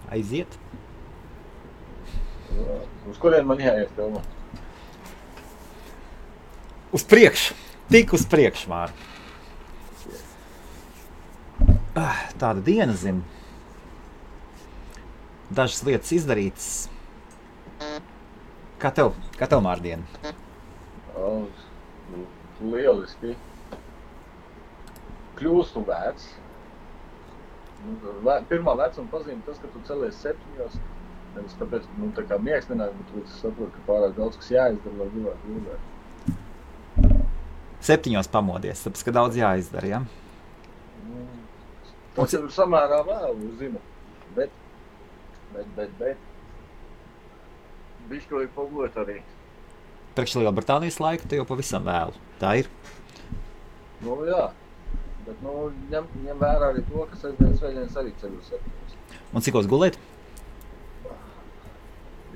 Aiziet. Uz kurien man jāiet filmā? Uz priekšu. Tik uz priekšu, Māri. Tāda diena, zinu. Dažas lietas izdarītas. Kā tev, Māri, diena? Lieliski. Kļūstu vecs. Pirmā vecuma pazīme tas, ka tu celies 7. Nevis tāpēc, tā kā miegs nenāk, bet tu saproti, ka pārāk daudz, kas jāizdara, lai gribētu gulēt. 7 pamodies, tāpēc, ka daudz jāizdara, ja? Tas ir samērā vēlu, zinu, bet. Bišķi vajag pagulēt arī. Priekš Lielbritānijas laika te jau pavisam vēlu. Tā ir? Jā, bet ņem vērā arī to, ka svētdienas arī ceļu 7. Un cikos gulēt?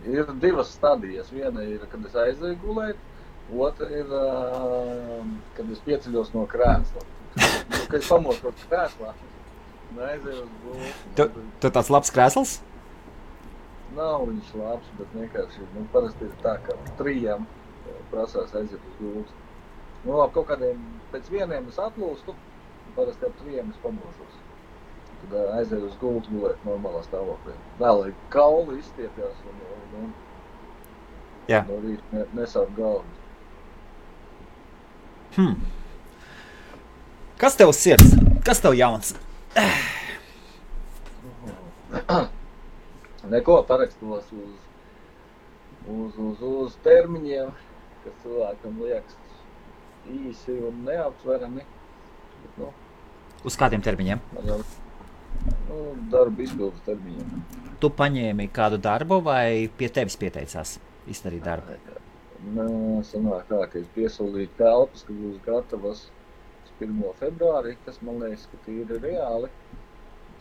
Ir 2 stadijas. Viena ir, kad es aizēju gulēt, otra ir, kad es pieceļos no krēsla. Kad es pamostu no krēslā, aizēju uz gulēt. Tu tāds labs krēsls? Nav viņš labs, bet vienkārši, parasti ir tā, ka 3 prasās aiziet uz gultu. Kaut kādiem pēc 1 es atlūstu, parasti ar 3 es pamošos. Tad aizēju uz gultu gulēt normālā stāvoklī. Lai kauli izstiepjās un no rīta nesāp galvu. Kas tev sirds? Kas tev jauns? Neko parakstos uz termiņiem, kas cilvēkam liekas īsi un neaptverami. Uz kādiem termiņiem? Darba izpildes termiņiem. Tu paņēmi kādu darbu vai pie tevis pieteicās izdarīt darbu? Sanāk tā, ka es piesolīju telpas, ka būs gatavas 1. februārī, kas man liekas, ka tīri reāli.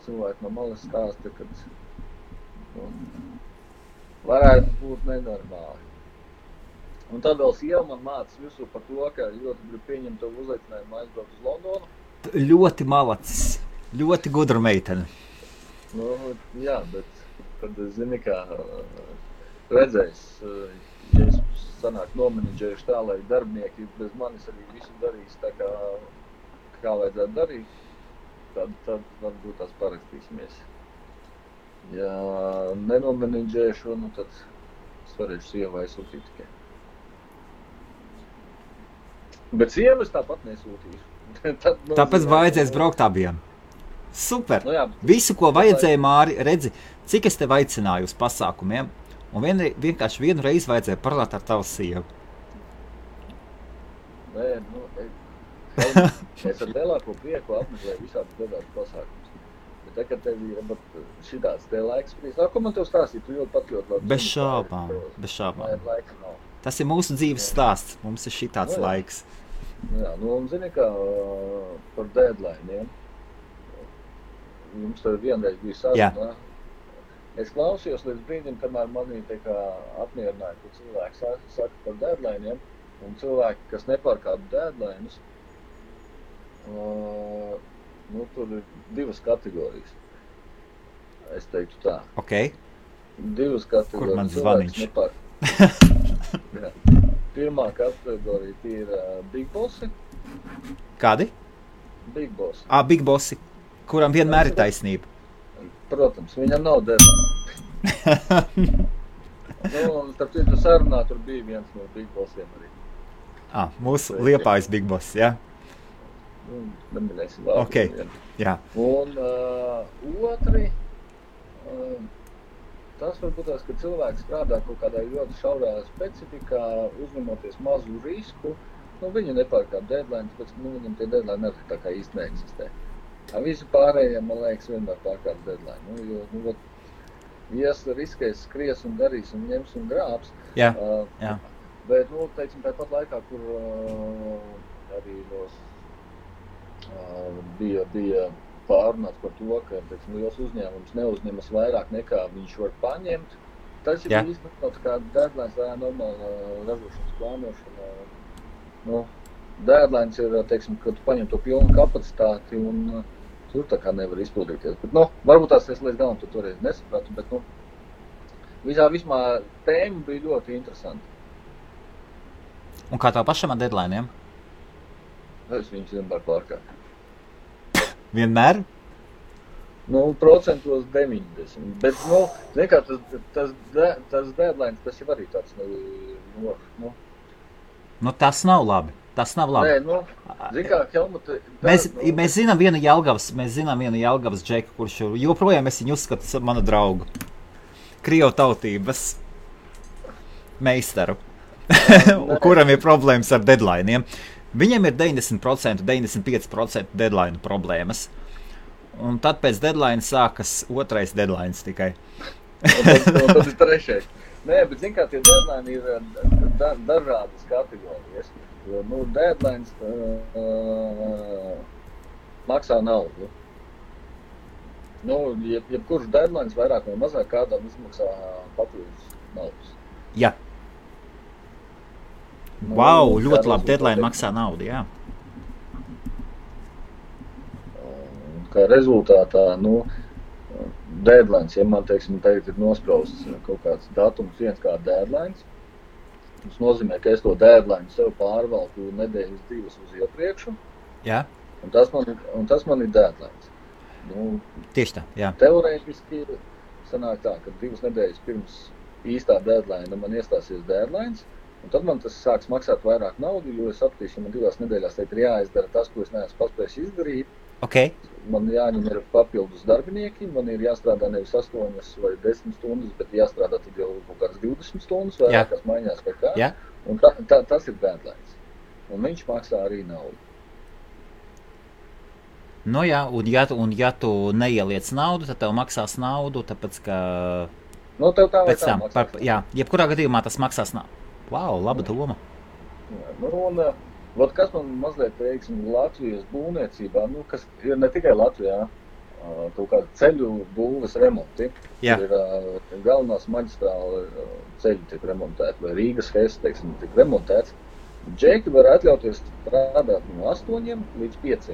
Cilvēki no malas stāsta, ka varētu būt nenormāli. Un tad vēl sieva man mācas visu par to, ka ļoti grib pieņemt to uzaicinājumu aizbraukt uz Londonu. Ļoti malacis, ļoti gudra meitene. Jā, bet tad zini, kā redzēs, ja es sanāk nomenedžējuši tā, lai darbinieki bez manis arī visu darīs tā, kā vajadzētu darīt, tad varbūt tās parakstīsimies. Ja nenomenedžēšu, tad es varēšu sievai sūtīt tikai. Bet sievu es tāpat nesūtīšu. Tāpēc vajadzēs braukt abiem. Super! Jā, visu, ko vajadzēja, Māri, redzi, cik es tev aicināju uz pasākumiem, un vienkārši vienu reizi vajadzēja parunāt ar tavu sievu. Es ar lielāko prieku apmeklēju visādus dažādus pasākumus. Bet tagad tev ir šitāds te laiks sprīst. Ko man tev stāstīt? Tu ļoti labi. Bez šābām. Tas ir mūsu dzīves stāsts. Mums ir šitāds laiks. Jā, un zini, kā par deadlineiem. Jums tad vienreiz bija saruna. Es klausījos līdz brīdim, kamēr manī apmierināja, ka cilvēki saka par deadlineiem, un cilvēki, kas nepārkāp deadlines, tur ir 2 kategorijas. Es teiktu tā. Ok. 2 kategorijas. Kur man zvaniņš? Pirmā kategorija ir Big Bossi. Kādi? Big Bossi. Big Bossi, kuram vienmēr ir taisnība. Protams, viņam nav deadline. Starp citu sarunā tur bija viens no Big Bossiem arī. Mūsu Liepājas Big Boss, jā? Neminēsim vārdu. Ok, jā. Un otri, tas varbūt tās, ka cilvēks strādā kaut kādā ļoti šaurā specifikā, uzņemoties mazu risku. Viņi nepārkāp deadline, tāpēc viņam tie deadline arī tā kā īsti neeksistē. Visi pārējie, man liekas, vienmēr pārkāp deadline. Ja riskēs, skries un darīs un ņems un grābs. Jā. Bet, teiksim, tāpat laikā, kur arī bija pārunāts par to, ka liels uzņēmums neuzņemas vairāk nekā viņš var paņemt. Tas ir īstenībā kā deadlines, tā normāla ražošanas plānošana. Deadlines ir, teiksim, kad tu paņem to pilnu kapacitāti un tur tā kā nevar izpildīties. Bet, varbūt tās es līdz galam toreiz nesapratu, bet, vismā tēma bija ļoti interesanta. Un kā tev pašam ar deadline'iem? Es viņus vienmēr pārkāpu. Vienmēr? Procentos 90. Bet, zin kā, tas deadlines, tas jau arī tāds, tas nav labi. Tas nav labi. Nē, zin kā, Helmut... Mēs zinām vienu Jelgavas džeku, kurš joprojām es viņu uzskatu manu draugu. Krievu tautības meistaru, kuram ir problēmas ar deadline'iem. Viņiem ir 90%, 95% deadline problēmas. Un tad pēc deadline sākas otrais deadline tikai. Tas ir trešais. Nē, bet zin kā, tie deadline ir dažādas kategorijas. Deadlines maksā naudu. Jebkurš deadlines vairāk vai mazāk kādam izmaksā papildus naudas. Jā. Wow, ļoti labi, deadline maksā naudu, jā. Kā rezultātā, deadlines, ja man, teiksim, tagad ir nosprausts kaut kāds datums, viens kā deadlines, tas nozīmē, ka es to deadline sev pārvalku nedēļas 2 uz iepriekšu, jā. Un tas man ir deadlines. Tieši tā, jā. Teorētiski sanāk tā, ka 2 nedēļas pirms īstā deadline man iestāsies deadlines, un tad man tas sāks maksāt vairāk naudu, jo es sapratīšu, ka man 2 nedēļās ir jāizdara tas, ko es neesmu paspējis izdarīt. Okay. Man jāņem ir papildus darbinieki, man ir jāstrādā nevis 8 vai 10 stundas, bet jāstrādā tad jau kaut kāds 20 stundas vairākās maiņās vai kā. Jā. Un tas ir deadlines. Un viņš maksā arī naudu. Jā, un ja tu neieliec naudu, tad tev maksās naudu, tāpēc, ka... Tev tā vai tā maksās. Jā, jebkurā gadījumā tas maksās naudu. Wow, laba doma. Jā, kas man mazliet, teiksim, Latvijas būvniecībā, kas ir ne tikai Latvijā, kaut kādi ceļu būves remonti. Jā. Tur ir galvenās maģistrāla ceļi tiek remontēti, vai Rīgas Hess, teiksim, tiek remontēts. Džeki var atļauties strādāt no 8 līdz 5.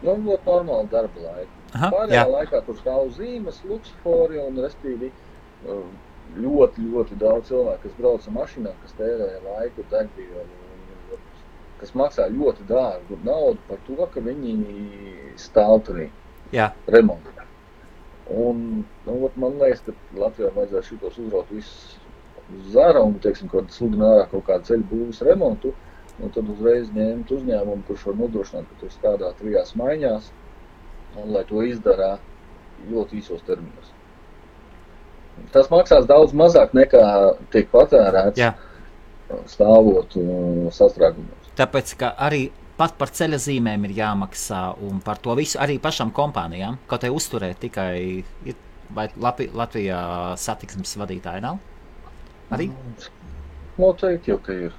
Ļoti normāli darba laika. Pārējā laikā tur stāv zīmes, luksofori un, restīvi, ļoti, ļoti daudz cilvēku, kas brauc ar mašīnām, kas tērē laiku, degvielu, kas maksā ļoti dārgu naudu par to, ka viņi stāv turī remontā. Un, man liekas, ka Latvijā vajadzētu šitos uzraut visus uz zara un, teiksim, kad sludina ārā kaut kādu ceļu būvis remontu, un tad uzreiz ņemt uzņēmumu, kurš var nodrošināt, ka tur strādā 3 maiņās, un lai to izdarā ļoti īsos terminos. Tas maksās daudz mazāk nekā tiek patērēts stāvot sastrēgumos. Tāpēc, ka arī pat par ceļa zīmēm ir jāmaksā un par to visu arī pašām kompānijām, kaut vai uzturēt tikai, vai Latvijā satiksmes vadītāji nav? Arī? Noteikti jau, ka ir.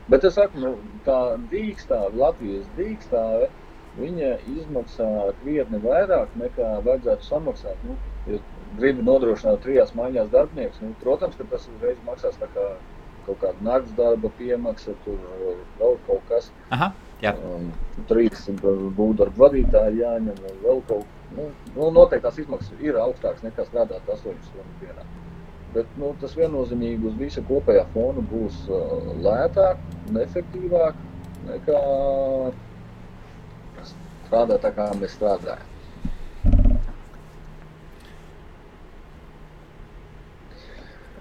Bet es saku, tā dīkstāve, Latvijas dīkstāve, viņa izmaksā krietni vairāk nekā vajadzētu samaksāt. Ja gribi nodrošināt 3 maiņās darbinieks, protams, ka tas uzreiz maksās tā kā kaut kāda nakts darba piemaksa, tur vēl kaut kas. Aha, jā. 3 būvdarba vadītāji jāņem, vēl kaut noteikti tās izmaksas ir augstākas nekā strādāt 8 stundu dienā. Bet tas viennozīmīgi uz visa kopējā fona būs lētāk un efektīvāk nekā strādāt tā, kā mēs strādājam.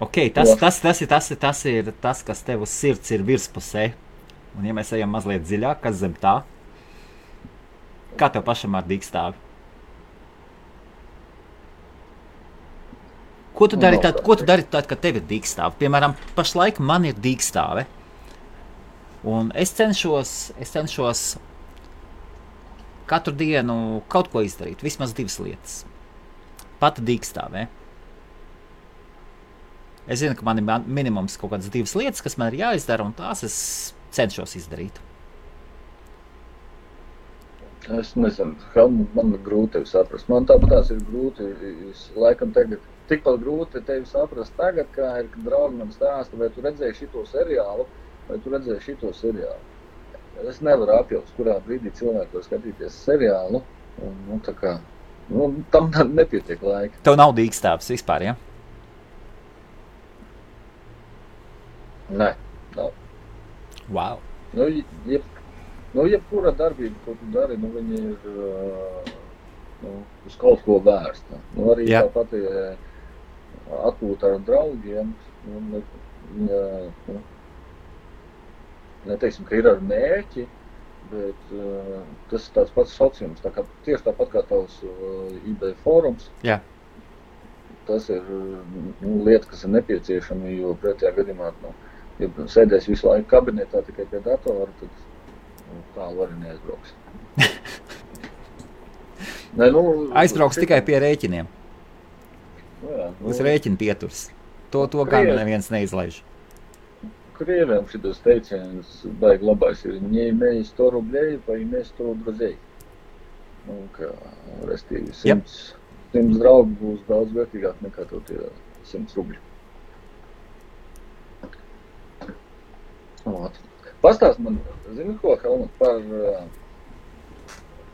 Ok, tas ir tas, kas tev uz sirds ir virspusē. Un ja mēs ejam mazliet dziļāk, kas zem tā? Kā tev pašam ar dīkstāvi? Ko tu dari tad, kad tev ir dīkstāve? Piemēram, pašlaik man ir dīkstāve. Un es cenšos katru dienu kaut ko izdarīt, vismaz 2 lietas. Pati dīkstāvē. Es zinu, ka man ir minimums kaut kādas 2 lietas, kas man ir jāizdara, un tās es cenšos izdarīt. Es nezinu, man ir grūti tevi saprast. Man tāpatās ir grūti, laikam tagad, tikpat grūti tevi saprast tagad, kā ir, kad draugi man stāsta, vai tu redzēji šito seriālu. es nevaru apjaust, kurā brīdī cilvēki var skatīties seriālu, un tā kā, tam nepietiek laika. Tev nav dīkstāps vispār, ja? Nē, nav. Wow. Jebkura darbība, ko tu dari, viņa ir uz kaut ko vērsta. Arī tāpat atpūta ar draugiem, neteiksim, ka ir ar mērķi, bet tas ir tāds pats sauciens, tieši tāpat kā tavs eBay fórums. Jā. Tas ir lieta, kas ir nepieciešama, jo pretējā gadījumā, ja sēdēs visu laiku kabinetā tikai pie datora, tad tālu arī neaizbrauks. Aizbrauks tikai pie rēķiniem. Uz rēķina pieturs. To gan neviens neizlaiž. Krieviem šitas teiciens baigi labais ir не имей 100 рублей, поимей 100 друзей. Restīvi 100 draugu būs daudz vērtīgāk nekā tev tie 100 rubļi. Pastāst man, zini ko, Helmut, par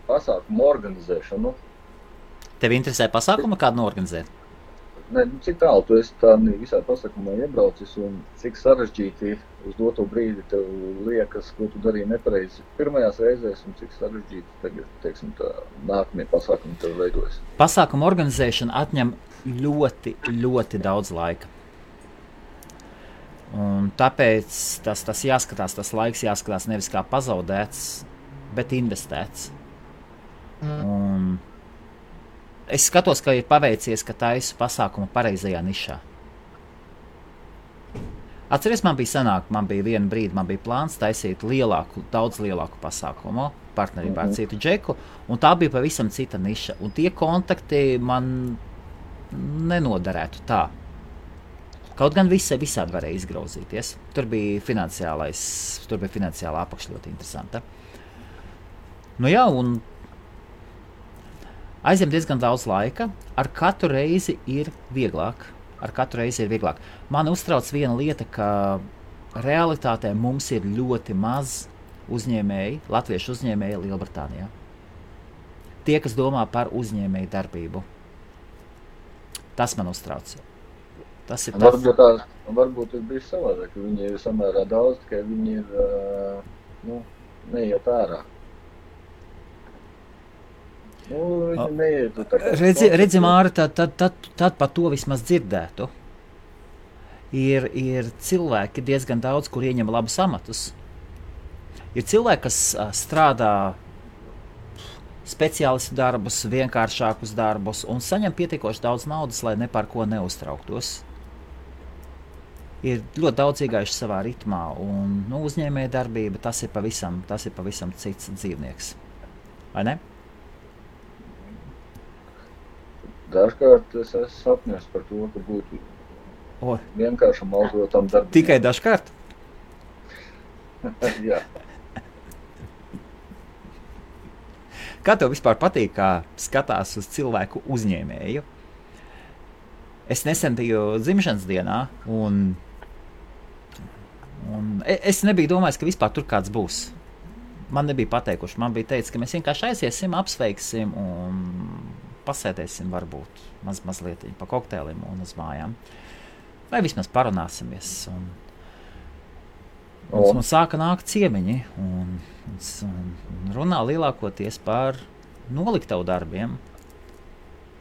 pasākumu organizēšanu? Tev interesē pasākumu kādu norganizēt? Ne, cik tālu tu esi tādā visā pasākumā iebraucis un cik sarežģīti uz doto brīdi tev liekas, ko tu darīji nepareizi pirmajās reizēs un cik sarežģīti tagad, teiksim, tā nākamie pasākumi tev veidojas? Pasākumu organizēšana atņem ļoti, ļoti daudz laika. Un tāpēc tas jāskatās, tas laiks jāskatās nevis kā pazaudēts, bet investēts. Un es skatos, ka ir paveicies, ka taisu pasākumu pareizajā nišā. Atceries, man bija viena brīdi, man bija plāns taisīt daudz lielāku pasākumu partnerībā ar citu džeku, un tā bija pavisam cita niša. Un tie kontakti man nenoderētu tā. Kaut gan visādi varēja izgrauzīties. Tur bija finansiālā apakša ļoti interesanta. Un aizņem diezgan daudz laika. Ar katru reizi ir vieglāk. Mani uztrauc viena lieta, ka realitātē mums ir ļoti maz uzņēmēji, latviešu uzņēmēji Lielbritānijā. Tie, kas domā par uzņēmēju darbību. Tas man uztrauc. Tas ir tas. Varbūt ir bijis savādāk, ka viņi ir samērā daudz, tikai viņi ir neiet ārā. Viņi neiet tā kā... Redzi, Māri, tad par to vismaz dzirdētu. Ir cilvēki diezgan daudz, kur ieņem labus amatus. Ir cilvēki, kas strādā speciālistu darbus, vienkāršākus darbus un saņem pietiekoši daudz naudas, lai ne par ko neuztrauktos. Ir ļoti daudz iegājuši savā ritmā, un uzņēmēja darbība tas ir pavisam cits dzīvnieks. Vai ne? Dažkārt es esmu sapņos par to, ka būtu vienkāršam algotam darbam. Tikai dažkārt? Jā. Kā tev vispār patīk, kā skatās uz cilvēku uzņēmēju? Es nesen biju dzimšanas dienā, un es nebiju domājis, ka vispār tur kāds būs. Man nebija pateikuši, man bija teicis, ka mēs vienkārši aiziesim, apsveiksim un pasēdēsim varbūt mazliet pa kokteilim un uz mājām. Vai vismaz parunāsimies. Un sāka nākt ciemiņi un runā lielākoties par noliktavu darbiem,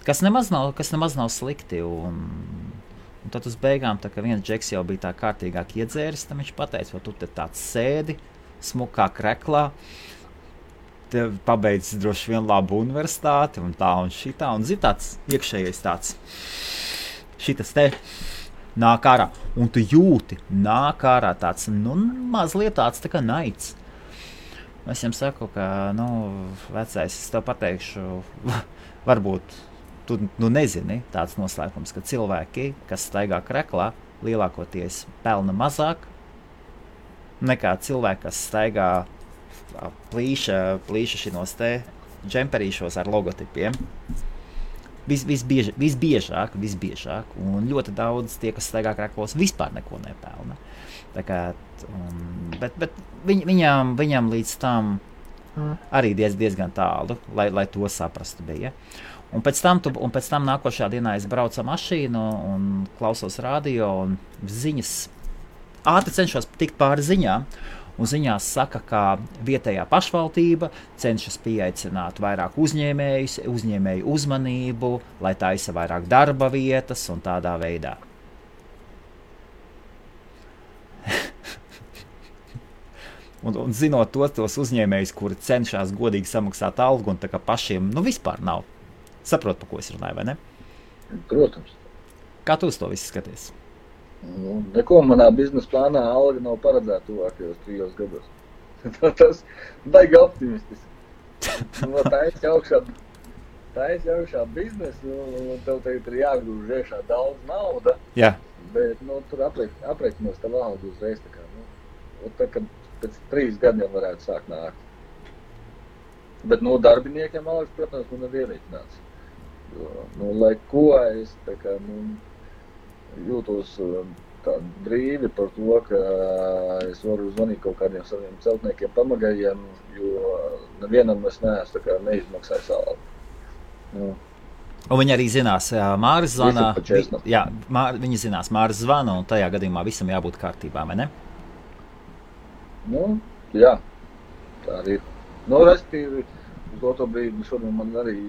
kas nemaz nav slikti. Un tad uz beigām, tā kā viens džeks jau bija tā kārtīgāk iedzēris, tam viņš pateica, vai tu te tāds sēdi, smukā kreklā, te pabeidzis droši vien labu universitāti un tā un šitā, un zin tāds iekšējais tāds, šitas te nāk ārā, un tu jūti, nāk ārā tāds, mazliet tāds tā kā naids. Es viņam saku, ka, vecais, es tev pateikšu, varbūt tu nezini tāds noslēpums, ka cilvēki, kas staigā kreklā, lielākoties pelna mazāk nekā cilvēki, kas staigā plīša šinos te džemperīšos ar logotipiem. Visbiežāk, un ļoti daudz tie, kas staigā kraklos, vispār neko nepelna. Tā kā, bet viņam līdz tam arī diezgan tālu, lai to saprastu bija. Un pēc tam nākošā dienā es braucu ar mašīnu un klausos radio un ziņas. Ātri cenšos tikt pāri ziņām. Un ziņās saka, ka vietējā pašvaldība cenšas pieaicināt vairāk uzņēmēju uzmanību, lai taisa vairāk darba vietas un tādā veidā. un zinot tos uzņēmējus, kuri cenšas godīgi samaksāt algu un tā kā pašiem vispār nav. Saprot, pa ko es runāju, vai ne? Protams. Kā tu uz to visu skaties? Neko manā biznesa plānā alga nav paredzēta tuvākajos 3 gados. Tas baigi optimistiski. Taisi augšā biznesu, tev tagad ir jāgrūž iekšā daudz nauda. Jā. Bet tur aprēķinos tavu algu uzreiz. Tā, kad pēc 3 gadiem varētu sākt nākt. Bet darbiniekiem algas, protams, man ir ierēķināts. Lai ko es jūtos tā brīvi par to, ka es varu zvanīt kaut kādiem saviem celtniekiem pamagajiem, jo nevienam es neesmu neizmaksājis algu. Un viņi arī zinās, Māris zvana. Viņi zinās, Māris zvana, un tajā gadījumā visam jābūt kārtībā, vai ne? Jā, tā arī ir. Restīvi, uz to brīdi šodien man arī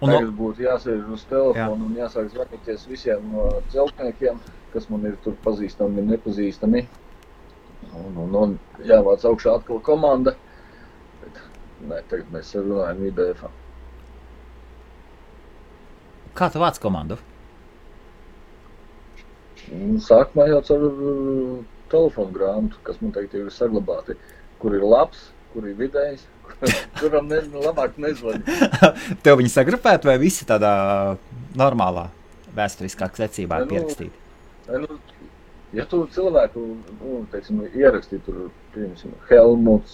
tagad būtu jāsēž uz telefonu un jāsāk zvanīties visiem celtniekiem, kas man ir tur pazīstami, nepazīstami. Un jāvāc augšā atkal komanda. Bet, tagad mēs runājam IBF-ā. Kā tu vāc komandu? Sākumā jau ar telefonu grāmatu, kas man tagad ir saglabāti, kur ir labs, kur ir vidējs, kuram labāk nezvani. Tev viņi sagrupēt vai visi tādā normālā vēsturiskā secībā pierakstīti? Ja tu cilvēku, ierakstīt tur, piemēram, Helmuts,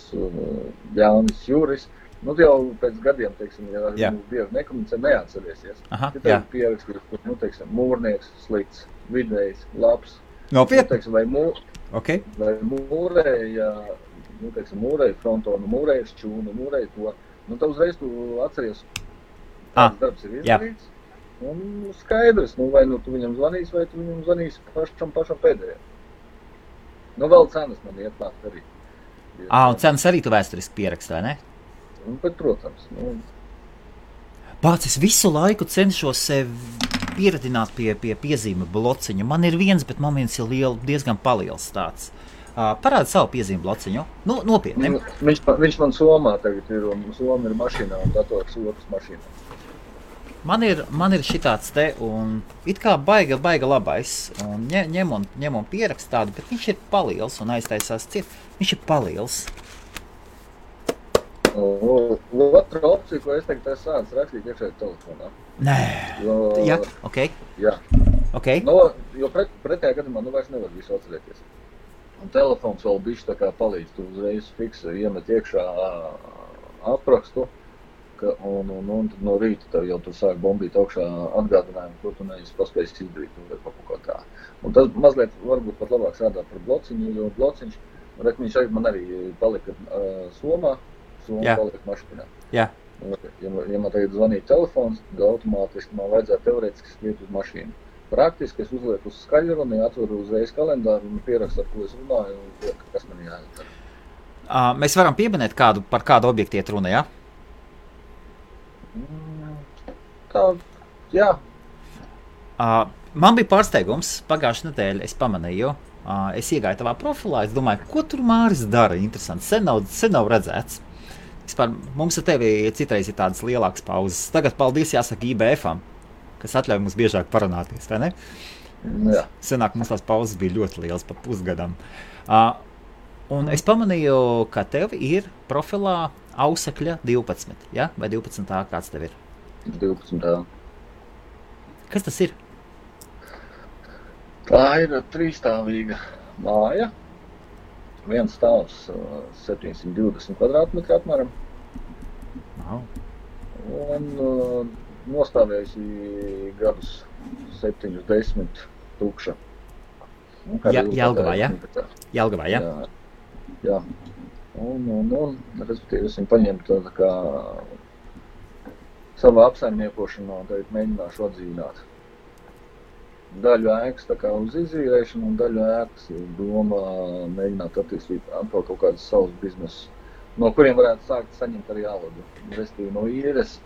Jānis Juris, jau pēc gadiem, ja bieži nekomunicē, neatcerēsies. Aha, ja tev pierakstīt, mūrnieks, slikts, vidējs, labs. Nopietni? Vai mūrēja, mūrēja frontonu, mūrēja šķūnu, mūrēja to. Tad uzreiz tu atceries, kāds darbs ir izdarīts. Un skaidrs, vai tu viņam zvanīs, vai tu viņam zvanīs pašam pēdējiem. Vēl cenas man ietnākt arī. Un cenas arī tu vēsturiski pierakst, vai ne? Bet, protams. Pats, es visu laiku cenšos sevi pieredināt pie piezīme blociņa. Man ir viens, bet man viens ir diezgan paliels tāds. Parāda savu piezīmi blociņu. Nopietni. Viņš man Somā tagad ir, un Soma ir mašīnā, un dators otrs mašīnā. Man ir šitāds te, un it kā baiga labais, un ņem un pierakst tādu, bet viņš ir paliels un aiztaisās ciet. Viņš ir paliels. Otra opcija, ko es tagad esmu sācis rakstīt iekšēji telefonā. Nē. Jā, ok. Jā. Okay. Jo pretējā gadījumā vairs nevar visu atcerēties. Un telefons vēl bišķi tā kā palīdz, tu uzreiz fiksa iemet iekšā aprakstu, un tad no rīta tev jau tur sāk bombīt augšā atgādinājumu, ko tu neesi paspējis izdarīt vai kaut ko tā. Un tas mazliet varbūt pat labāk strādā par blociņu, jo blociņš, viņš man arī palika Somā, palika mašīnā. Jā. Ja man tagad zvanīja telefons, tad automātiski man vajadzētu teorētiski skriet uz mašīnu. Praktiski es uzlieku uz skaļruni, atveru uzreiz kalendāru un pierakstu, ar ko es runāju, un kas man jāizdara. Mēs varam pieminēt par kādu objektu iet runa, jā? Jā. Man bija pārsteigums, pagājušajā nedēļā es pamanīju, es iegāju tavā profilā, es domāju, ko tur Māris dara, interesanti, sen nav redzēts. Vispār, mums ar tevi citreiz ir tādas lielākas pauzes. Tagad paldies jāsaka IBF-am, kas atļauj mums biežāk parunāties, vai ne? Jā. Senāk mums tās pauzes bija ļoti liels, pa pusgadam. Un es pamanīju, ka tev ir profilā Ausekļa 12, ja? Vai 12. Kāds tev ir? 12. Kas tas ir? Tā ir 3-stāvīga māja. Viens stāvs 720 kvadrātmetri apmēram. Wow. Un nostāvējusi gadus 7, 10 tukša. Jelgavā, ja? Jelgavā, ja? Jā. Un respektīvi, es viņu paņemtu tā kā savā apsaimniekošanā, un tagad mēģināšu atdzīvināt. Daļu ēkas tā kā uz izīrēšanu, un daļu ēkas doma mēģināt attīstīt atkal kaut kādus savus biznesus, no kuriem varētu sākt saņemt arī algu. Respektīvi no īres,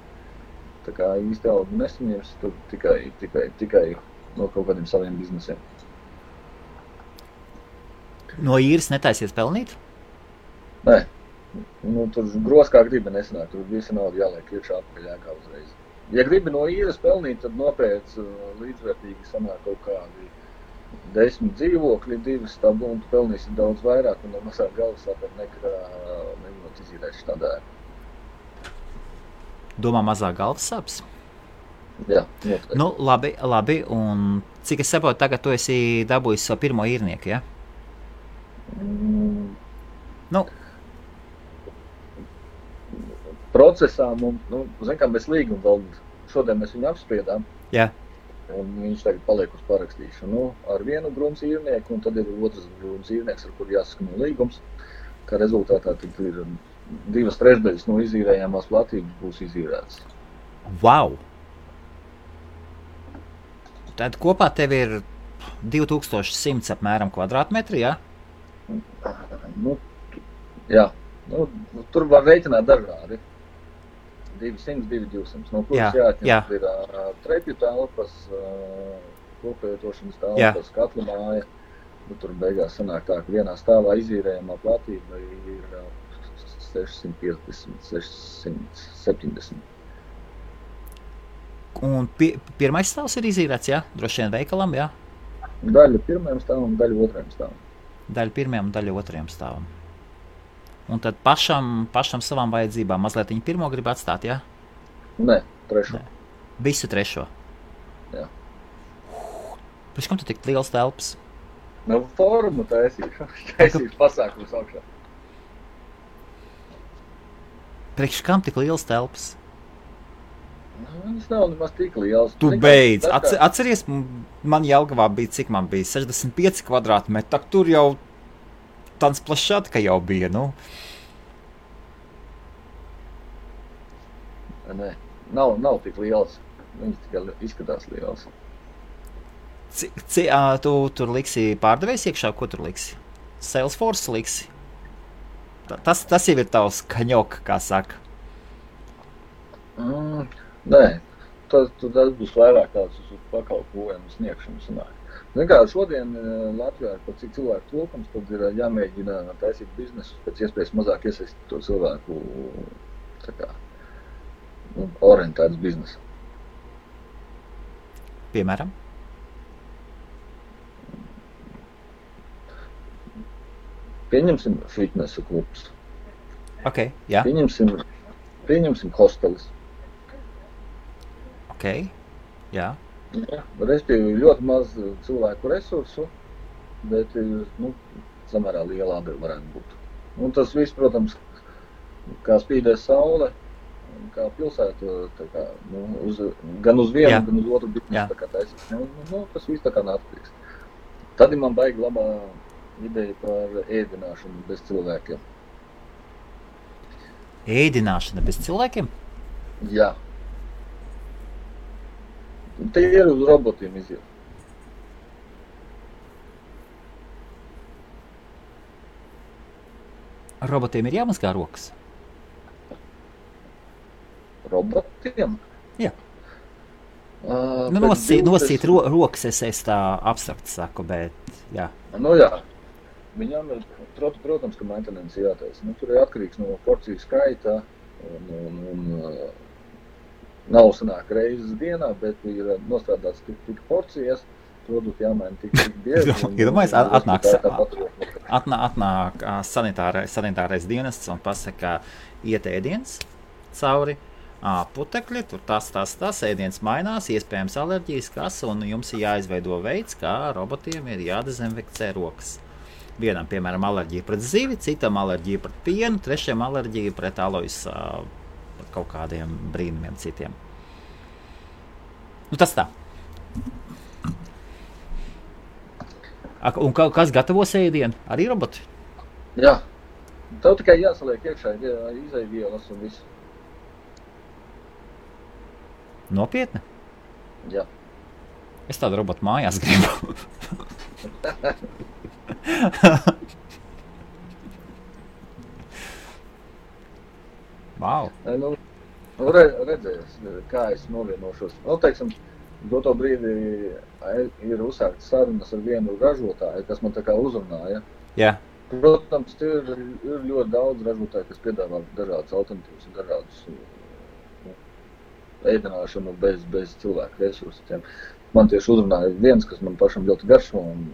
tā kā īsti algu nesaņems, tad tikai no kaut kādiem saviem biznesiem. No īres netaisies pelnīt? Nē. Tur gros kā gribi nesanāk, tur visi naudu jāliek iekšā atpakaļ ēkā uzreiz. Ja gribi no īres pelnīt, tad nopēc līdzvērtīgi sanāk kaut kādi 10 dzīvokļi, 2 stabu, un tu pelnīsi daudz vairāk, un no mazāk galvas sāpēt nekā mēģinot izīrēt šādā ēku. Domā mazāk galvas sāpes? Jā, noteikti. Nu, labi, un cik es saprotu, tagad tu esi dabūjis savu pirmo īrnieku, ja? Nu. Procesā mums, zin kā, mēs līgumu vēl šodien mēs viņu apspriedām. Jā. Un viņš tagad paliek uz parakstīšanu ar vienu grunts īrnieku, un tad ir otrs grunts īrnieks, ar kuru jāsakano līgums, kā rezultātā tad ir 2/3 no izīrējāmās platības būs izīrētas. Wow! Tad kopā tev ir 2100 apmēram kvadrātmetri, jā? Jā. Tur var reiķināt dažādi. 200, 200, no kuras jāatņemt ir trepju telpas, koplietošanas telpas, katla māja. Tur beigās sanāk tā, ka vienā stāvā izīrējamā platība ir 650, 670. Un pirmais stāvs ir izīrēts, jā? Droši vien veikalam, jā? Daļa pirmajam stāvam, daļa otrajam stāvam. Daļa pirmajam, daļa otrajam stāvam. Un tad pašam savām vajadzībām mazliet viņu pirmo grib atstāt, jā? Nē, trešo. Visu trešo? Jā. Priekš kam tu tik liels telpas? Formu taisīšu pasākums augšā. Priekš kam tik liels telpas? Tas nav nemaz tik liels. Tu beidz. Atceries, man Jelgavā bija, cik man bija, 65 kvadrātmetri, tak tur jau tāds plašātka jau bija, Nē, nav tik liels. Viņš tikai izskatās liels. Tu tur liksi pārdevējs iekšā? Ko tur liksi? Salesforce liksi? Tas jau ir tavs kaņok, kā saka. Nē, tas būs vairāk tāds uz pakalpojumu sniegšanu sanāk. Zin kā, šodien Latvijā ir pat cik cilvēku trūkums, tad ir jāmēģina taisīt biznesus, pēc iespējas mazāk iesaistīt to cilvēku tā kā, orientēts biznesu. Piemēram? Pieņemsim fitnesa klubs. Ok, jā. Pieņemsim hostelis. Ok, jā. Jā, respektīvi ļoti maz cilvēku resursu, bet samērā liela atdeva varētu būt. Un tas viss, protams, kā spīdēs saule, kā pilsēta, tā kā, gan uz vienu, gan uz otru biznesu, tā kā taisīs. Tas viss tā kā nāktīgs. Tad man baigi labā ideja par ēdināšanu bez cilvēkiem. Ēdināšana bez cilvēkiem? Jā. Te ir uz robotiem iziet. Robotiem ir jāmazgā rokas? Robotiem? Jā. Nosīt rokas es tā abstrakt saku, bet jā. Jā. Viņam ir, protams, ka maintenance jātaisa. Tur ir atkarīgs no porciju skaita un nav sanāk reizes dienā, bet ir nostrādāts tik porcijas, produkti jāmaina tik bieži. Iedomājies, atnāk sanitārais dienests un pasaka, iet ēdiens cauri, putekļi, tur tas, ēdiens mainās, iespējams alerģijas, un jums ir jāizveido veids, kā robotiem ir jādezinfekcē rokas. Vienam, piemēram, alerģija pret zivi, citam alerģija pret pienu, trešajam alerģija pret alojas kaut kādiem brīnumiem citiem. Nu, tas tā. Un kas gatavos ēdienu? Arī roboti? Jā. Tev tikai jāsaliek iekšā izaivielas un visu. Nopietni? Jā. Es tādu robotu mājās gribu. Wow. Nu, redzēs, kā es novienošos. Nu, teiksim, doto brīdi ir uzsāktas sarunas ar vienu ražotāju, kas man tā kā uzrunāja. Jā. Protams, ir ļoti daudz ražotāju, kas piedāvā dažādas alternatīvas un dažādus ēdināšanu bez cilvēku resursiem. Man tieši uzrunāja viens, kas man pašam ļoti garšo un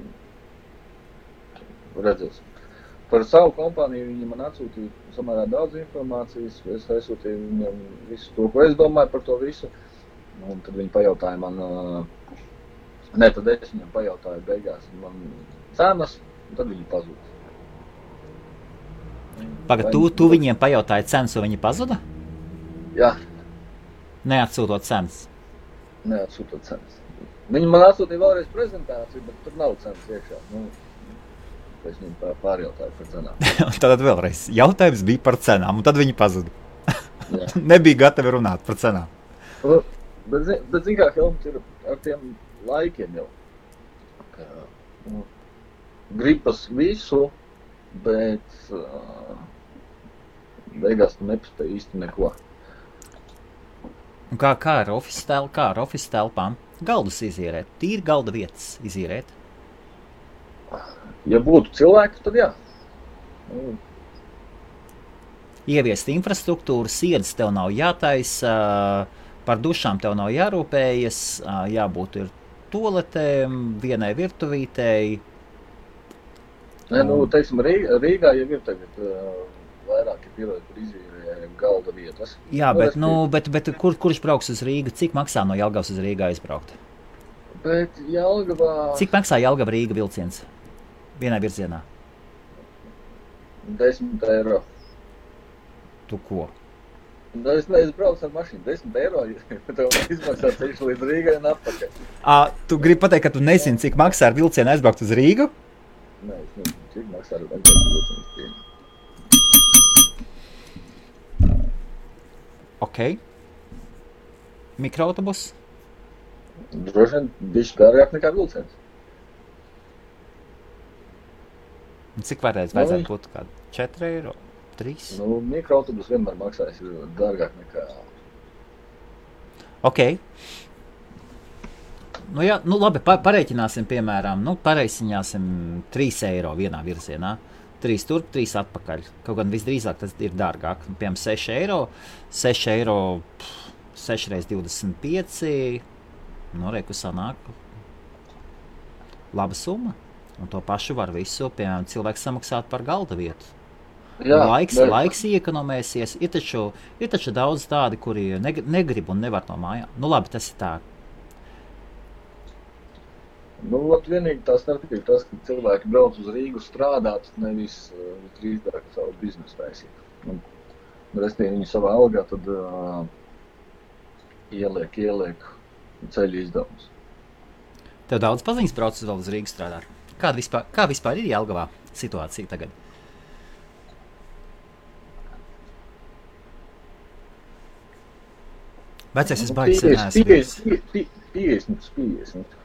redzēs. Par savu kompāniju viņi man atsūtīja samērā daudz informācijas, es aizsūtīju viņam visu to, ko es domāju par to visu. Un tad viņi pajautāja man, tad es viņam pajautāju beigās man cenas, un tad viņi pazuda. Pagad, tu viņiem pajautāji cenas, un viņi pazuda? Jā. Neatsūtot cenas? Neatsūtot cenas. Viņi man atsūtīja vēlreiz prezentāciju, bet tur nav cenas iekšā. Es viņiem pārjautāju par cenām. Tad vēlreiz jautājums bija par cenām, un tad viņi pazuda. Nebija gatavi runāt par cenām. Bet zin kā, Helmut, ir ar tiem laikiem jau. Gribas visu, bet beigās tu nepaspēj īsti neko. Un kā ar office telpām? Galdus izīrēt, tīri galda vietas izīrēt? Ja būtu cilvēki, tad jā. Ieviest infrastruktūru, siedas tev nav jātaisa, par dušām tev nav jārūpējas, jābūt ir toaletēm, vienai virtuvītei. Teiksim, Rīgā jau ir tagad vairāki piloti, kur izīrē galda vietas. Jā, bet kurš brauks uz Rīgu? Cik maksā no Jelgavas uz Rīgā aizbraukt? Bet Jelgavā... Cik maksā Jelgava-Rīga vilciens? Vienā virzienā? 10 eiro. Tu ko? Es braucu ar mašīnu. 10 eiro, tev izmaksā ceļš līdz Rīgai un atpakaļ. Tu gribi pateikt, ka tu nezini, cik maksā ar vilcienu aizbraukt uz Rīgu? Nē, es nezinu, cik maksā ar vilcienu. Ok. Mikroautobus? Droši vien bišķi dārgāk nekā vilciens. Cik varēs vajadzētu būt kādu 4 eiro? 3? Mikroautobus vienmēr maksājas dārgāk nekā... Ok. Labi, pareiķināsim, piemēram, pareiķināsim 3 eiro vienā virzienā. 3 turp, 3 atpakaļ. Kaut gan visdrīzāk tas ir dārgāk. Piemēram, 6 eiro. 6 eiro, 6 reiz 25. Reku sanāk. Laba summa. Un to pašu var visu, piemēram, cilvēks samaksāt par galda vietu. Jā, laiks iekonomēsies. Ir taču daudz tādi, kuri negrib un nevar no mājām. Labi, tas ir tā. Vienīgi tā starpība tas, ka cilvēki brauc uz Rīgu strādāt, nevis drīzāk savu biznesu taisīt. Restīvi viņi savā algā tad ieliek ceļu izdevumus. Tev daudz paziņas brauc vēl uz Rīgu strādāt? Kā vispār ir Jelgavā situācija tagad? Vecais es baigi sen neesmu. 50.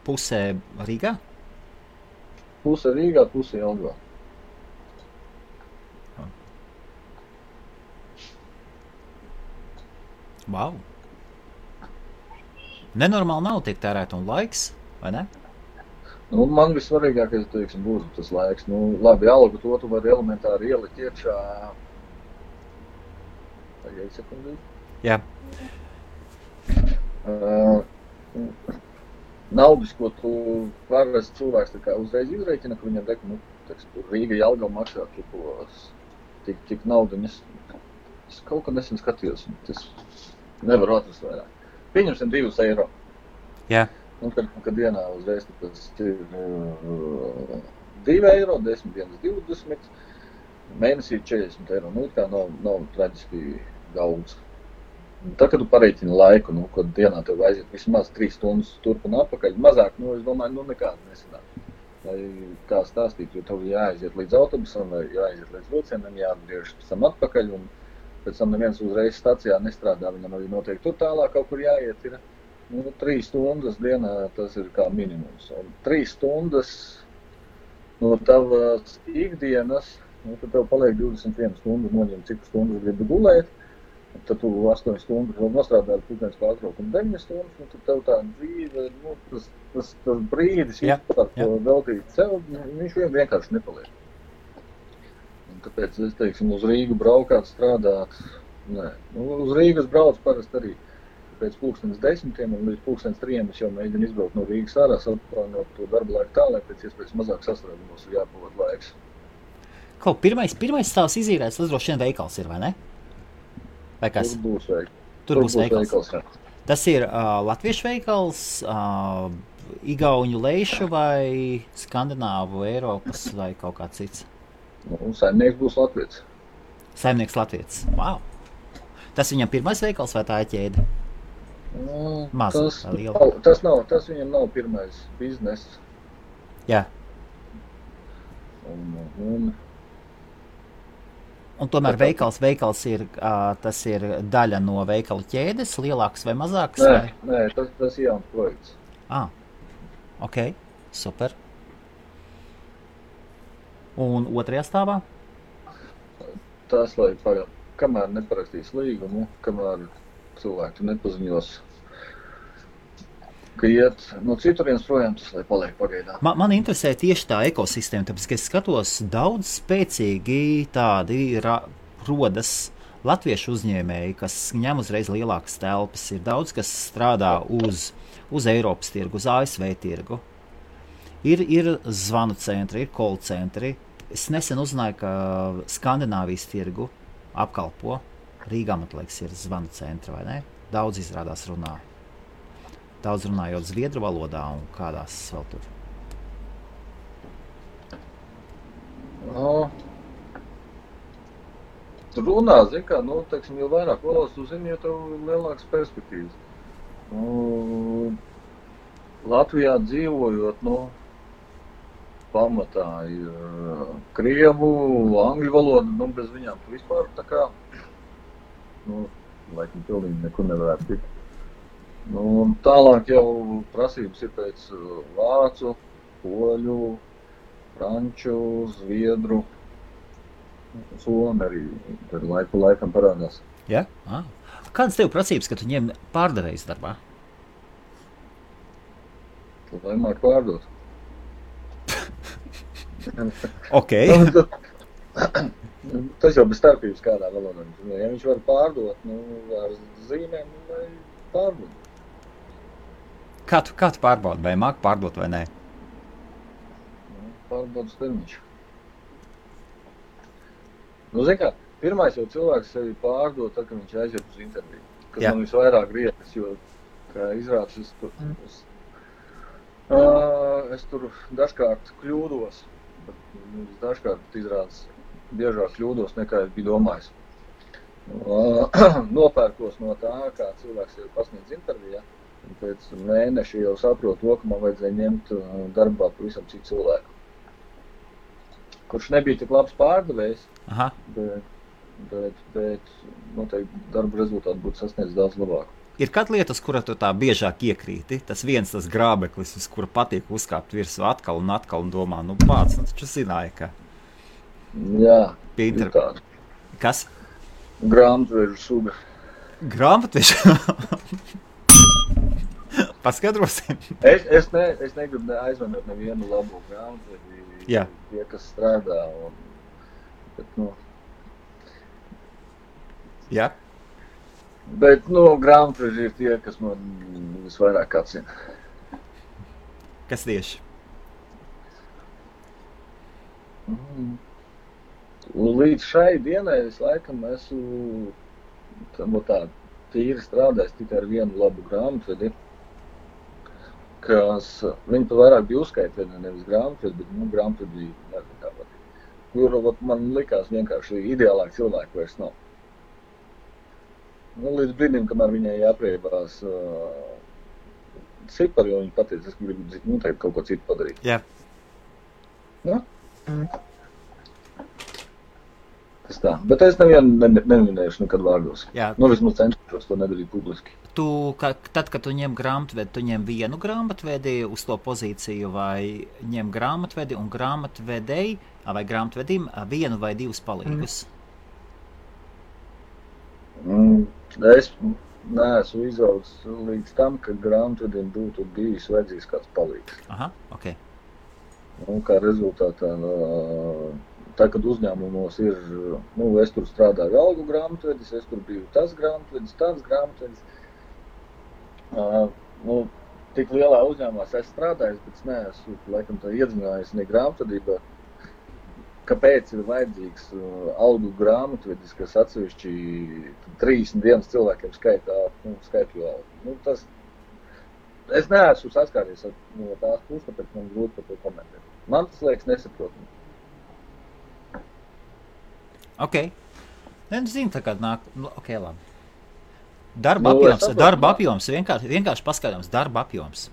Pusē Rīgā? Puse Rīgā, puse Jelgavā. Wow. Nenormāli nav tiek tērēt un laiks, vai ne? Man vissvarīgākais, teiksim, būtu tas laiks. Labi, algu to tu vari elementāri ielikt iekšā. Tagad sekundī. Jā. Naudas, ko tu parasti cilvēks tā kā uzreiz izreikina, ka viņam dek, Rīga Jelgava maksā tik naudu. Es kaut kad nesen skatījos, tas nevaru atrast vairāk. Pieņemsim 2 eiro. Jā. Kad dienā uzreiz tas ir 2 eiro, 10 dienas 20, mēnesī 40 eiro. Tā nav traģiski daudz. Tā, kad tu pareiķini laiku, kad dienā tev aiziet vismaz 3 stundas turp un atpakaļ, mazāk, es domāju, nekāda nesanāk. Lai kā stāstīt, jo tev jāaiziet līdz autobusam, vai jāaiziet līdz vilcienam, jāatgriežas pēc tam atpakaļ, un pēc tam neviens uzreiz stacijā nestrādā, viņam arī noteikti tur tālāk kaut kur jāiet ir. 3 stundas dienā tas ir kā minimums. Un 3 stundas no tavas ikdienas, tad tev paliek 21 stundas, noņem cik stundas gribi gulēt, tad tu 8 stundas vēl nostrādāji pūkdienas pārtraukumu 9 stundas, un tad tev tā dzīve, tas brīdis vispār, ko veltīt sev, viņš vienkārši nepaliek. Un tāpēc es teiksim, uz Rīgu braukāt, strādāt, nē. Uz Rīgas brauc parasti arī pēc 10:00 un līdz 3:00 es jau mēģinu izbraukt no Rīgas ārā, saplānot to darba laiku tā, lai pēc iespējas mazāk sastrādumos ir jāpavada laiks. Kaut pirmais stāvs izīrēts, tas droši vien veikals ir, vai ne? Vai kas? Tur būs veikals. Tas ir latviešu veikals, igauņu leišu vai skandināvu, Eiropas vai kaut kā cits? Saimnieks būs latviets. Saimnieks latviets. Wow! Tas viņam pirmais veikals vai tā ir ķēde? Tas viņam nav pirmais bizness. Jā. Un tomēr veikals ir, tas ir daļa no veikalu ķēdes, lielāks vai mazāks? Nē, tas ir jauns projekts. Ok, super. Un otrajā stāvā? Tas, lai kamēr neparakstīs līgumu, kamēr cilvēki nepaziņos, ka iet no citurienes projām, tas, lai paliek pagaidā. Man interesē tieši tā ekosistēma, tāpēc, ka es skatos, daudz spēcīgi tādi rodas latviešu uzņēmēji, kas ņem uzreiz lielākas telpas. Ir daudz, kas strādā uz Eiropas tirgu, uz ASV tirgu. Ir zvanu centri, ir call centri. Es nesen uzzināju, ka Skandināvijas tirgu apkalpo. Rīgā, man liekas, ir zvanu centri, vai ne? Daudz izrādās runā. Daudz runājot zviedru valodā un kādās vēl tur. Tur runā, zin kā, teiksim, jo vairāk valodas tu zini, jo tev ir lielākas perspektīvas. Latvijā dzīvojot, pamatā ir krievu, angļu valoda, bez viņām tu vispār tā kā, laikam pilnīgi nekur nevarētu tikt. Tālāk jau prasības ir pēc vācu, poļu, franču, zviedru, somi arī laiku laikam parādās. Jā? Kādas tev prasības, ka tu ņem pārdevējs darbā? Lai māk pārdot. Ok. Tas jau bez starpības kādā valodā. Ja viņš var pārdot, ar zīmēm, vai pārdot. Kā tu pārbaudi, vai māk pārdot vai nē? Pārbaudas termiņš. Zin kā, pirmais jau cilvēks sevi pārdot, tad, kad viņš aiziet uz interviju. Kas man visvairāk griekas, jo, kā izrādās, es tur dažkārt kļūdos, bet dažkārt izrādās biežāk kļūdos, nekā es biju domājis. Nopērkos no tā, kā cilvēks jau pasniedz intervijā. Pēc mēneša jau saprotu to, ka man vajadzēja ņemt darbā pavisam citu cilvēku. Kurš nebija tik labs pārdevējs, bet noteikti darba rezultāti būtu sasniedz daudz labāk. Ir kāda lieta, uz kura tu tā biežāk iekrīti? Tas grābeklis, uz kura patīk uzkāpt virsū atkal un domā, taču zināja, ka... Jā, ir tāda. Kas? Grāmatvežu suga. Grāmatvežu? Paskaidrosim. Es negribu aizvanot nevienu labu grāmatvežu, tie, kas strādā. Jā. Bet, grāmatveži ir tie, kas man visvairāk atsina. Kas tieši? Līdz šai dienai es laikam esmu tā tīri strādājis tikai ar vienu labu grāmatvedi, kas viņi pat vairāk bija uzskaitvedi, nevis grāmatvedi, bet grāmatvedi nezinu kā patīk. Kur man likās vienkārši ideālāk cilvēku vairs nav. līdz brīdim, kamēr viņai jāpriebās cipari, jo viņa pateica, es gribu tagad kaut ko citu padarīt. Jā. Nu? Tas tā. Bet es nevienu neminēšu nekad vārdos. Jā. Nu, vismaz cenšos to nedarīt publiski. Tad, kad tu ņem grāmatvedi, tu ņem vienu grāmatvedi uz to pozīciju vai ņem grāmatvedi un grāmatvedēji vai grāmatvedim vienu vai divus palīgus? Es neesmu izaudzis līdz tam, ka grāmatvedim būtu bijis vajadzīgs kāds palīgs. Aha, ok. Un kā rezultātā, tā, kad uzņēmumos ir, es tur strādāju algu grāmatvedis, es tur biju tas grāmatvedis, tāds grāmatvedis. Tik lielā uzņēmumā es strādājis, bet es neesmu, laikam, tā iedzinājies ne grāmatvedībā. Kāpēc ir vajadzīgs algu grāmatvedis, kas atsevišķi 31 cilvēkiem skaitļu algu? Es neesmu saskāries no tās puses, tāpēc man grūti par to komentēt. Man tas liekas nesaprotami. Ok. Zinu, tā kā nāk. Ok, labi. Darba apjoms, vienkārši paskatāms darba apjoms.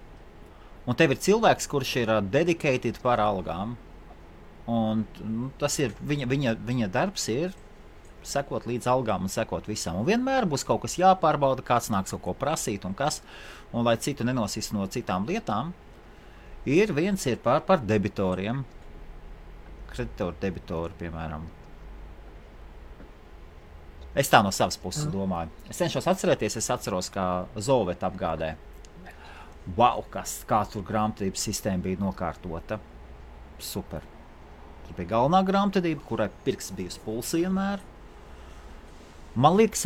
Un tev ir cilvēks, kurš ir dedicated par algām. Un tas ir, viņa darbs ir sekot līdz algām un sekot visam. Un vienmēr būs kaut kas jāpārbauda, kāds nāks kaut ko prasīt un kas. Un lai citu nenosist no citām lietām, viens ir par debitoriem. Kreditoru debitori, piemēram. Es tā no savas puses domāju. Es cenšos atcerēties, es atceros, kā Zolveta apgādē. Wow, kā tur grāmatvedības sistēma bija nokārtota. Super. Tur bija galvenā grāmatvedība, kurai pirksts bija uz pulsa vienmēr. Man liekas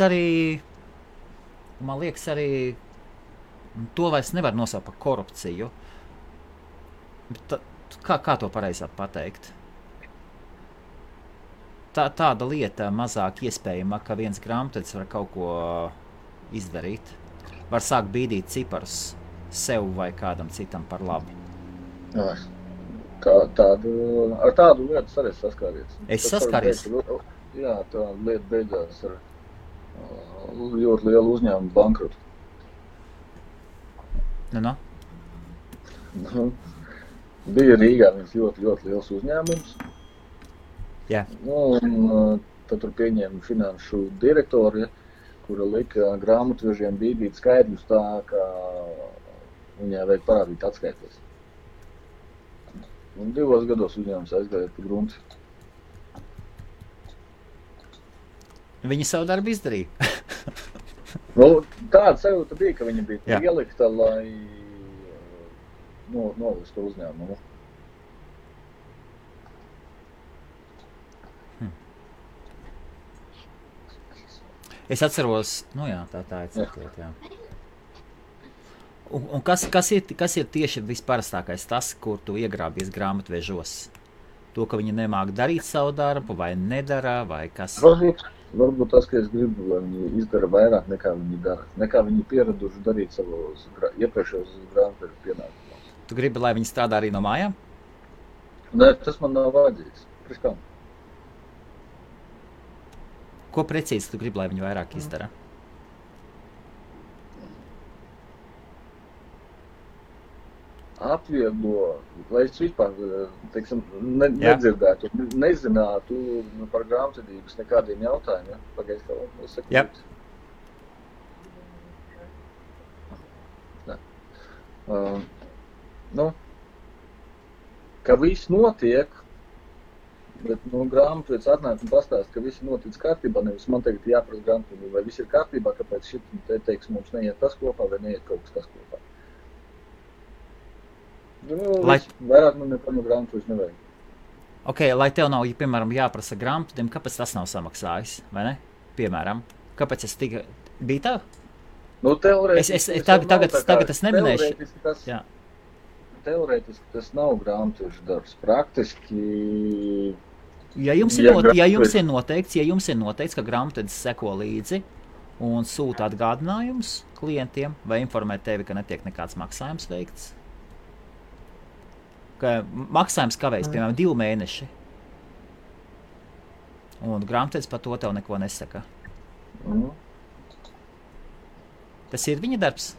arī, to vairs nevar nosaukt par korupciju. Bet kā to pareizāk pateikt? Tāda lieta mazāk iespējama, ka viens grāmatvedis var kaut ko izdarīt. Var sākt bīdīt ciparus sev vai kādam citam par labu. Ar tādu lietu arī saskāries. Es saskāries? Jā, tā lieta beidzās ar ļoti lielu uzņēmumu bankrotu. Bija Rīgā viens ļoti, ļoti liels uzņēmums. Jā. Un tad tur pieņēma finanšu direktori, kura lika grāmatvežiem bīdīt skaidrus tā, ka viņai vajag parādīt atskaites. Un 2 gados uzņēmums aizgāja pa grunti. Viņi savu darbu izdarīja. Tāda sajūta bija, ka viņa bija ielikta, lai nolistu uzņēmumu. Es atceros, tā ir citot, jā. Un kas ir tieši visparastākais tas, kur tu iegrābies grāmatvežos? To, ka viņi nemāk darīt savu darbu, vai nedara, vai kas? Varbūt tas, ka es gribu, lai viņi izdara vairāk nekā viņi dara. Nekā viņi pieraduši darīt savos iepriekšējos grāmatvežu pienākumos. Tu gribi, lai viņi strādā arī no mājām? Nē, tas man nav vajadzīgs. Priekš Ko precīzi tu gribi, lai viņi vairāk izdara? Atvieglo, lai es vispār, nedzirdētu, nezinātu par grāmatvedības nekādiem jautājumiem. Pagaidzi, kā es saku. Jā. Ka viss notiek, bet grāmatvedis atnāk un pastāst, ka viss notic kārtībā, nevis man tagad jāprasa grāmatvedība, vai viss ir kārtībā, kāpēc šit teiks mums neiet tas kopā vai neiet kaut kas tas kopā. Vairāk man nekā no grāmatvedis nevajag. Ok, lai tev nav, piemēram, jāprasa grāmatvedim, kāpēc tas nav samaksājis, vai ne? Piemēram, kāpēc es bija tā? Tagad es neminēšu. Teorētiski tas nav grāmatvežu darbs. Praktiski... Ja jums ir noteikts, ka grāmatvedis seko līdzi un sūta atgādinājumus klientiem vai informē tevi, ka netiek nekāds maksājums veikts, ka maksājums kavējas, piemēram, 2 mēneši, un grāmatvedis par to tev neko nesaka. Tas ir viņa darbs.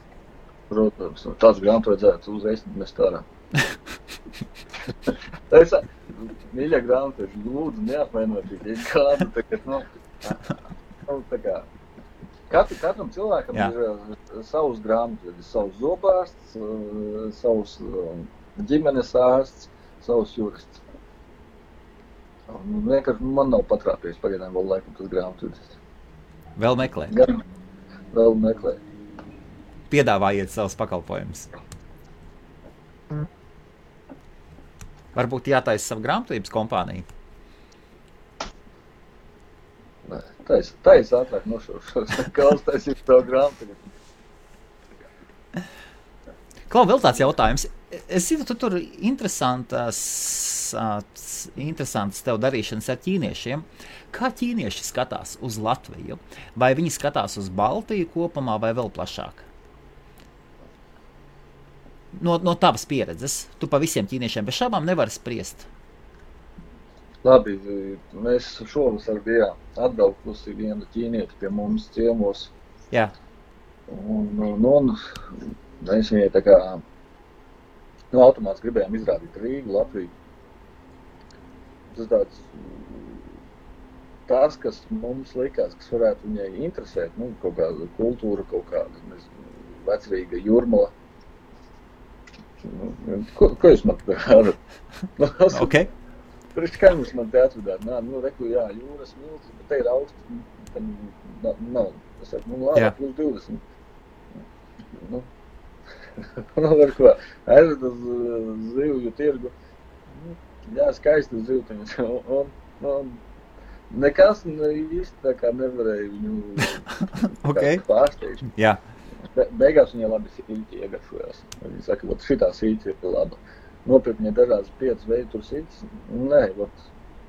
Protams, tāds grāmatu vajadzētu uzreiz mest ārā. Mīļā grāmatveži, lūdzu, neapvainojiet, ja kādu tagad, tā kā, katram cilvēkam ir savs grāmatvedis, savs zobārsts, savs ģimenes ārsts, savs jurists. Vienkārši man nav patrāpies pagaidām vēl laikam tas grāmatvedis. Vēl meklē. Vēl meklē. Piedāvājiet savus pakalpojumus. Varbūt jātaisa savu grāmatvedības kompāniju. Nē, taisa ātrāk nošaušos. Kāds taisīt savu grāmatvedību? Klau, vēl tāds jautājums. Es zinu, tu tur interesantas tev darīšanas ar ķīniešiem. Kā ķīnieši skatās uz Latviju? Vai viņi skatās uz Baltiju kopumā vai vēl plašāk? No tavas pieredzes, tu pa visiem ķīniešiem bez šaubām nevari spriest. Labi, mēs šovasar bijām atbraukusi viena ķīnieti pie mums ciemos. Jā. Un mēs viņai tā kā automāts gribējām izrādīt Rīgu, Latviju. Tas tāds, tās, kas mums likās, kas varētu viņai interesēt, kaut kāda kultūra, kaut kāda, nezinu, vecrīga Jūrmala. Ko jūs man te varat? Ok. Priekš kā jūs man te atvedāt? Reku, jā, jūras milts, bet te ir augsts, tam nav. Es saku, labi, plus 20. Var ko, aizved uz zivju tirgu. Jā, skaisti zivtiņas. Un nekas īsti tā kā nevarēja viņu pārsteigt. Jā. Beigās viņai labi sīķi iegaršojās. Viņa saka, šitā sīķi ir laba. Nopirkt viņai dažādas 5 veidu tur sīķis. Nē,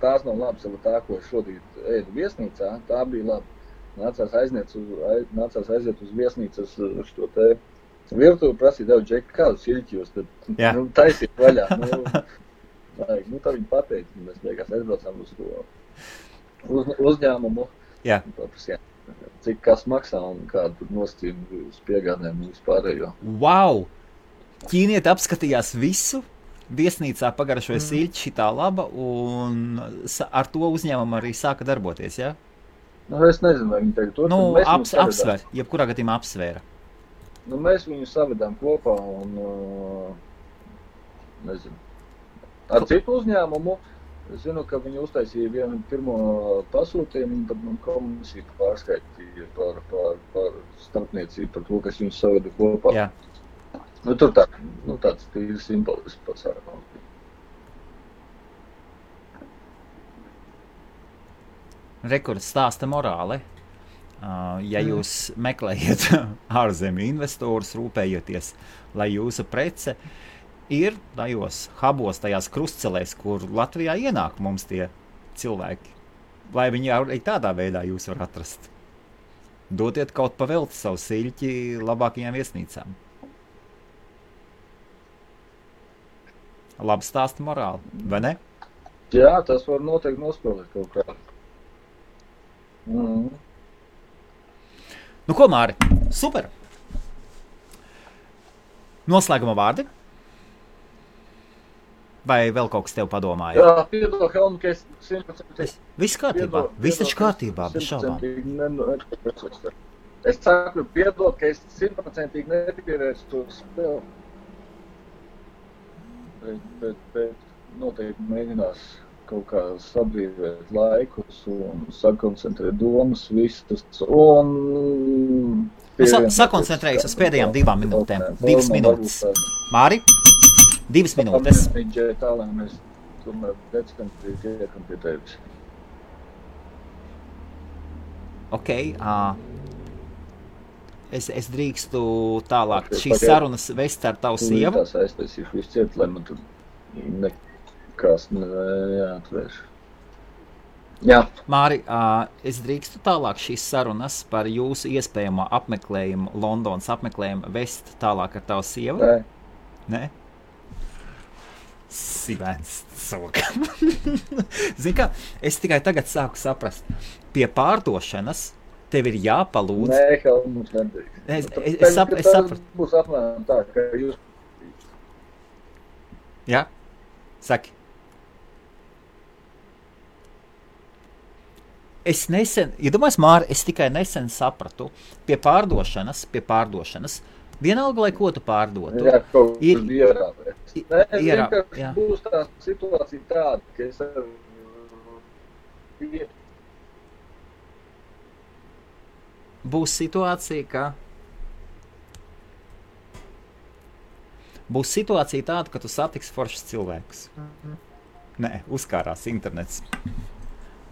tās nav labas, tā, ko es šodien ēdu viesnīcā, tā bija laba. Nācās aiziet uz viesnīcas šo te virtuvi, prasīt, Džeki, kādu sīķi jūs tad taisīt vaļā. Tā viņa pateica, mēs beigās aizbraucām uz to uzņēmumu. Jā. Cik kas maksā un kādu tur nosacījumu uz piegādēm un vispārējo. Wow! Ķīnieti apskatījās visu, viesnīcā pagaršoja sīļķi šitā laba un ar to uzņēmumu arī sāka darboties, jā? Es nezinu, vai viņi tagad to... Apsver, jebkurā gadījumā apsvēra. Mēs viņu savedām kopā un, nezinu, ar citu uzņēmumu. Es zinu, ka viņi uztaisīja vienu pirmo pasūtījumu, un tad man komisija pārskaitīja par starpniecību, par to, kas viņus saveda kopā. Jā. Tur tāds tīri simbolisks pasākums. Rekords stāsta morāli. Ja jūs meklējat ārzemju investorus, rūpējoties, lai jūsu prece ir tajos hubos, tajās krustcelēs, kur Latvijā ienāk mums tie cilvēki, lai viņi arī tādā veidā jūs var atrast. Dotiet kaut pavelti savu siļķi labākajām viesnīcām. Labi stāsta morāli, vai ne? Jā, tas var noteikti nospēlēt kaut kā. Nu ko, Māri? Super! Noslēguma vārdi? Vai vēl kaut kas tev padomāja? Jā, piedod, Helmu, ka es 100%... Viss kārtībā, viss taču kārtībā, bez šaubām. Es saku, piedod, ka es 100% nepierēšu to spēli. Bet noteikti mēģinās kaut kā sabrīvēt laikus un sakoncentrēt domas visas un... Sakoncentrējas uz pēdējām 2 minūtēm. 2 minūtes. Māri? 2 minūtes. Tā, lai mēs tomēr decembrī tiekam pie tevis. Ok. Es drīkstu tālāk šīs sarunas vest ar tavu sievu. Es aiztaisīšu visu ciet, lai man tur nekas neatvērš. Jā. Māri, es drīkstu tālāk šīs sarunas par jūsu iespējamo apmeklējumu, Londonas apmeklējumu vest tālāk ar tavu sievu? Nē? Sivēns cokam. Zini kā, es tikai tagad sāku saprast. Pie pārdošanas Tev ir jāpalūdz. Nē, Helmuts nedrīkst. Es sapratu. Tas būs apmēram tā, ka jūs... Jā? Saki. Es nesen, iedomājies, Māri, es tikai nesen sapratu, pie pārdošanas, vienalga, lai ko tu pārdotu. Jā, kaut kas ierāpēs. Nē, jā. Būs tā situācija tāda, ka es ar Būs situācija tāda, ka tu satiksi foršus cilvēkus. Nē, uzkārās internets.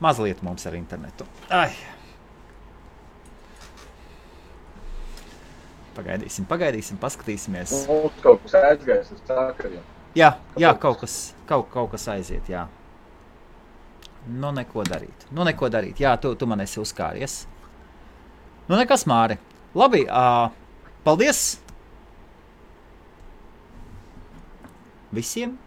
Mazliet mums ar internetu. Ai. Pagaidīsim, paskatīsimies. Mums kaut kas aizgājis uz sakariem. Jā, kaut kas aiziet, jā. Nu, neko darīt. Jā, tu man esi uzkāries. Nu, nekas, Māri. Labi, paldies visiem!